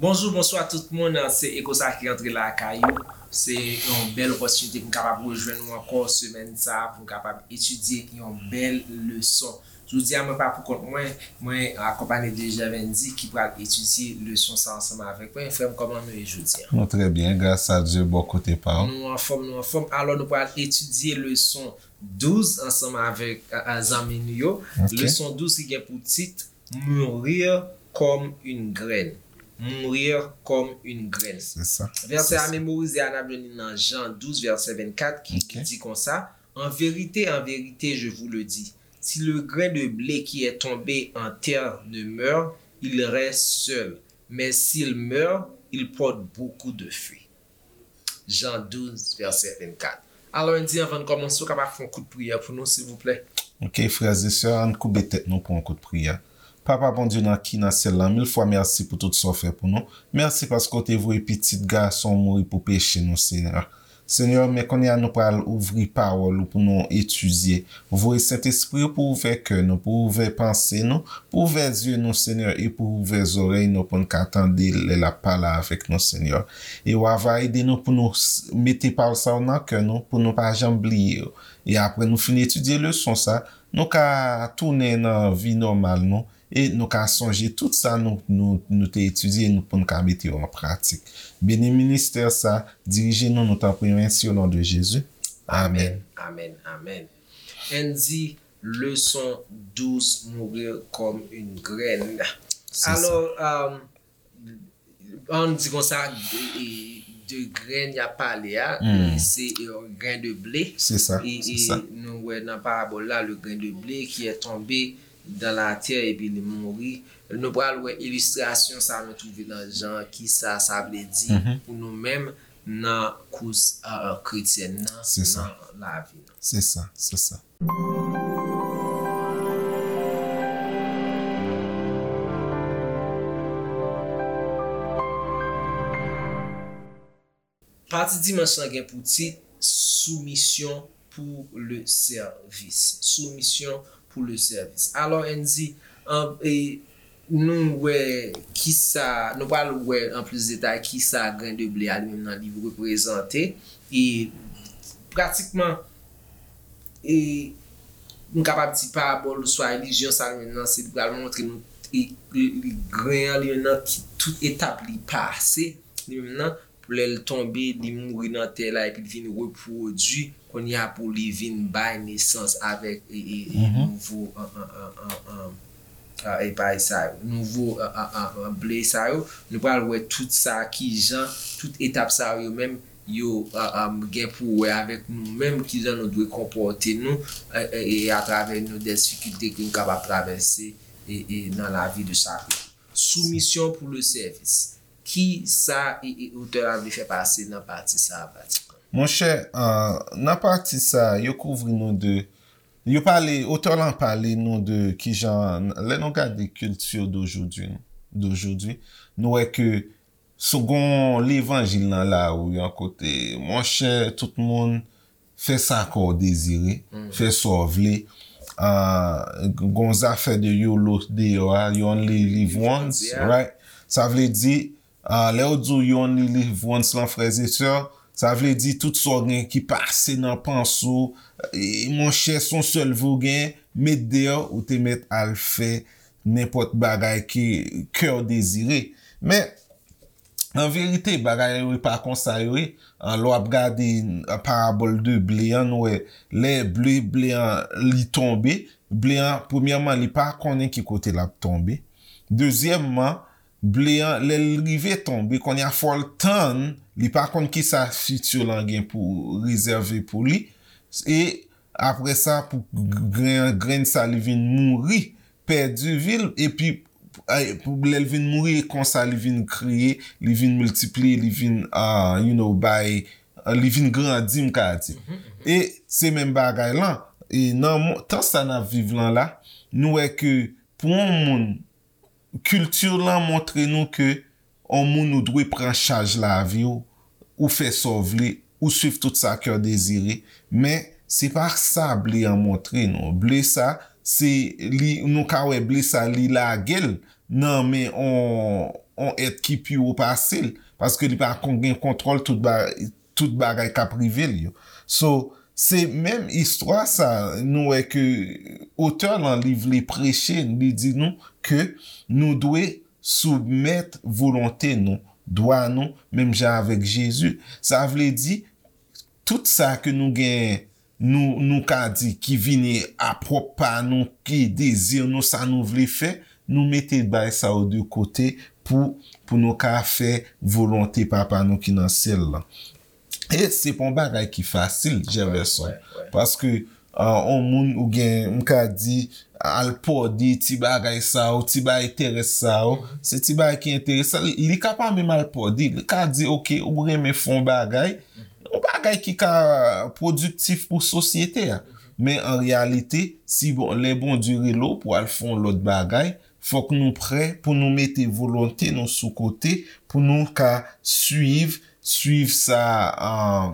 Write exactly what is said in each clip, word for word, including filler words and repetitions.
Bonjou, bonswa tout moun. Se Eko sa ki antre lakay ou. Se yon bèl opòtinite pou m kapab rejwenn ou ankò semèn sa a, pou m kapab etidye yon bèl leson. Jodi a, mwen pa pou kont mwen, mwen akonpanye de Jèvendi ki pral etidye leson sa ansanm avèk mwen. Frè m, kòman nou ye jodi a? Nou trè byen, gras a Dye, bò kote pa w. Nou anfòm, nou anfòm. Alò, nou pral etidye leson douz ansanm avèk, a, a, zanmi nou yo. Ok. Leson douz ki gen pou tit Mourir comme une graine. Mourir comme une graine. Se sa. Vèsè a memorize a, n ap jwenn li nan Jan douz, vèsè vennkat, ki di konsa, En vérité, en vérité, je vous le dis, si le grain de blé qui est tombé en terre ne meurt, il reste seul. Mais s'il meurt, il porte beaucoup de fruits. Jan douz, vèsè vennkat. Alò, Andy, anvan n kòmanse, ou kapab fè yon kout priyè pou nou, silvouplè? Ok, frè e sè, ann koube tèt nou pou yon kout priyè. Papa Bondye nan ki nan syèl la, mil fwa mèsi pou tout sa w fè pou nou. Mèsi paske w te voye pitit gason w mouri pou peche nou, Senyè. Senyè, men kounye a nou pral ouvri pawòl ou pou nou etidye. Voye Sentespri w pou ouvè kè nou, pou ouvè panse nou, pou ouvè zye nou, Senyè, e pou ouvè zòrèy nou pou n ka tande lè l ap pale avèk nou, Senyè. E w a va ede nou pou nou s- mete pawòl sa yo nan kè nou, pou nou pa janm bliye yo. E apre nou fin etidye leson sa, nou ka tounen nan vi nòmal nou, e nou ka sonje tout sa nou, nou, nou te etidye e nou, pou n ka mete yo an pratik. Beni ministè sa, dirije nou, nou tanpri, mèsi, o non de Jezi. Amèn. Amèn, amèn, amèn. Andy, leson douz, Mourir comme une graine. Se sa. Alò, um, ann di konsa, e, e, de grenn y ap pale a, e, se, e, yon grenn de ble. Se sa, e, se e sa. Nou wè nan parabòl la, le grain de blé qui est tombé dans la terre epi li mouri. Nou pral wè ilistrasyon sa nou twouve nan Jan, kisa sa vle di pou nou menm nan kous, e, e, kretyèn nan, se sa, nan lavi nou. Se sa, se sa. Pati dimanch lan gen pou tit Soumisyon pou le sèvis. Soumisyon pou le sèvis. Alò, Andy, an, e, nou wè kisa, nou pral wè an plis detay kisa grenn de ble a li menm nan li reprezante. E pratikman, e, nou kapab di parabòl oswa ilizyon sa li menm nan, se li pral montre nou, e, e, grenn an li menm nan, ki tout etap li pase, li menm nan, pou lè l tonbe, li mouri nan tè la, epi l vin repwodui, kounye a pou li vin bay nesans avèk, e, e, e, nouvo, an, an, an, an, an, a, e, bagay sa yo, nouvo, a, a, a, a, ble sa yo. Nou pral wè tout sa, kijan, tout etap sa yo menm, yo, a, a, gen pou wè avèk nou menm, kijan nou dwe konpòte nou, e, e, e atravè nou de difikilte ke nou kapab travèse, e, e nan lavi de chak jou. Soumisyon pou le sèvis. Kisa, e, e, otè a vle fè pase nan pati sa a, pratikan? Monchè, e, nan pati sa a, yo kouvri nou de, yo pale, otè lan pale nou de kijan, lè nou gade kilti d'aujourd'hui, d'aujourd'hui, nou wè ke sou gon levanjil nan lari an kote, monchè, tout moun fè sa kè w dezire, fè sa w vle. A, gon zafè de yolo deyò a, you only live once, right? Sa vle di, a, lè yo di w you only live once lan, frè e sè, sa vle di tout sa w gen ki pase nan panse w, e, monchè, se yon sèl vi w gen, met deyò, ou te mèt al fè nenpòt bagay ke kè w dezire. Men, an verite, bagay yo pa konsa yo ye. An, lè w ap gade, an, parabòl de ble an, nou wè, lè ble, ble an, li tonbe, ble an, premyèman, li pa konnen ki kote l ap tonbe. Dezyèmman, ble an, lè l rive tonbe, kounye a fò l tann, li pa konn kisa fiti lan gen pou rezève pou li. E apre sa, pou grenn, grenn sa, li vin mouri, pèdi vi l, epi, e, pou lè l vin mouri, e konsa li vin kreye, li vin miltipliye, li vin, a, you know, bay, a, li vin grandi, m ka di. E se menm bagay lan. E nan mo- tan sa n ap viv lan la, nou wè ke pou yon moun, kilti lan montre nou ke yon moun ou dwe pran chaj lavi w, ou fè sa w vle, ou swiv tout sa kè w dezire. Men, se pa sa ble an montre nou. Ble sa, se li, nou ka wè ble sa, li lage l nan men on, yon èt ki pi wo pase l, paske li pa kon gen kontwòl tout ba, tout bagay k ap rive l yo. So, se menm istwa sa, nou wè ke otè lan li vle preche, li di nou ke nou dwe soumèt volonte nou, dwa nou, menm jan avèk Jezi. Sa vle di, tout sa ke nou gen, nou, nou ka di ki vini a pwòp pa nou, ki dezi nou, sa nou vle fè, nou mete bagay sa yo de kote pou, pou nou ka fè volonte Papa nou ki nan syèl la. E se pa yon bagay ki fasil, Jefferson. Paske, ah, yon moun ou gen, m ka di, al pòde ti bagay sa yo, ti bagay terès sa yo, se ti bagay ki enteresan. Li, li ka pa menm al pòde, li ka di, oke, ou renmen fè yon bagay, yon bagay ki ka pwodiktif pou sosyete a. Men an reyalite, si bon, lè Bondye rele w pou al fè yon lòt bagay, fòk nou prè pou nou mete volonte nou sou kote, pou nou ka swiv, swiv sa, ah,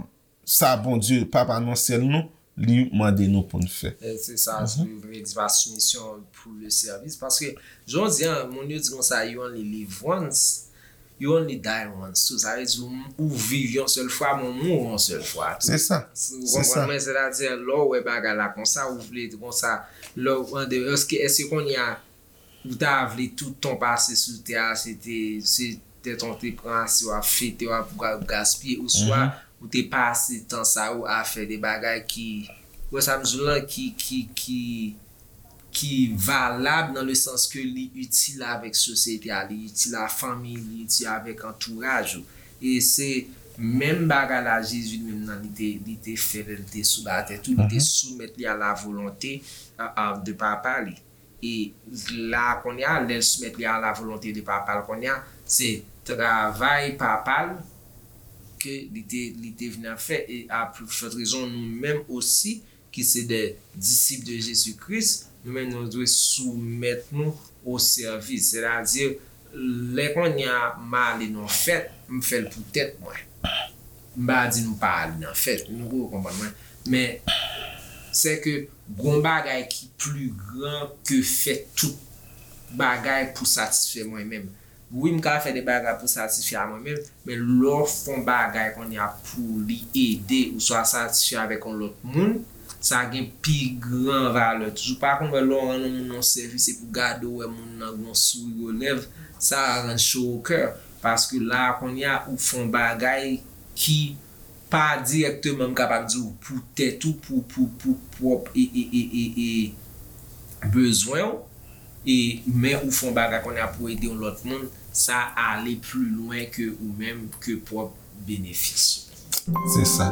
sa Bondye, Papa nan syèl nou, li mande nou pou n fè. E se sa, Bib vle di pa soumisyon pou le service. Paske, jan w di an, moun yo di konsa, you only live once, you only die once. So, sa vle di, ou, ou viv yon sèl fwa, men ou mouri yon sèl fwa tou. Se sa. Ou konprann mwen? Sètadi, lè w wè bagay la konsa, ou vle konsa, lè w, èske, èske kounye a, ou ta vle tout tan w pase sou tè a, se te, se tèt w te pran ase, w ap fete, w ap ga-, gaspiye, oswa ou te pase tan sa yo a fè de bagay ki, wè sa m di w lan, ki, ki, ki, ki valab nan le sans ke li itil avèk sosyete a, li itil a fanmi, li itil avèk antouraj ou. E se menm bagay la Jezi li menm nan li te, li te fè lè li te sou latè tou, li te soumèt li a la volonte, a, a, de Papa li. E la kounye a, lè l soumèt li a la volonte de Papa l kounye a, se travay Papa l ke li te, li te vin ap fè. E a plus forte raison, nou menm osi, ki se de disip de Jezi Kris, nou menm nou dwe soumèt nou o sèvis. Sètadi, lè kounye a m ale nan fèt, m fè l pou tèt mwen. M pa di nou pa al nan fèt, nou ko konprann mwen. Men, se ke gon bagay ki pli gran ke fè tout bagay pou satisfè mwen menm. Wi, m ka fè de bagay pou satisfè a mwen menm, men lè w fè yon bagay kounye a pou li ede oswa satisfè avèk yon lòt moun, sa gen pi gran valè toujou. Pa konn wè lè w rann yon moun yon sèvis epi w gade w wè moun nan gen yon souri o lèv, sa rann cho o kè. Paske la a kounye a ou fè yon bagay ki pa dirèkteman, m kapab di w, pou tèt ou, pou, pou, pou pwòp e, e, e, e, e bezwen w, e, men ou fè yon bagay kounye a pou ede yon lòt moun, sa ale pli lwen ke ou menm, ke pwòp benefis ou. Se sa.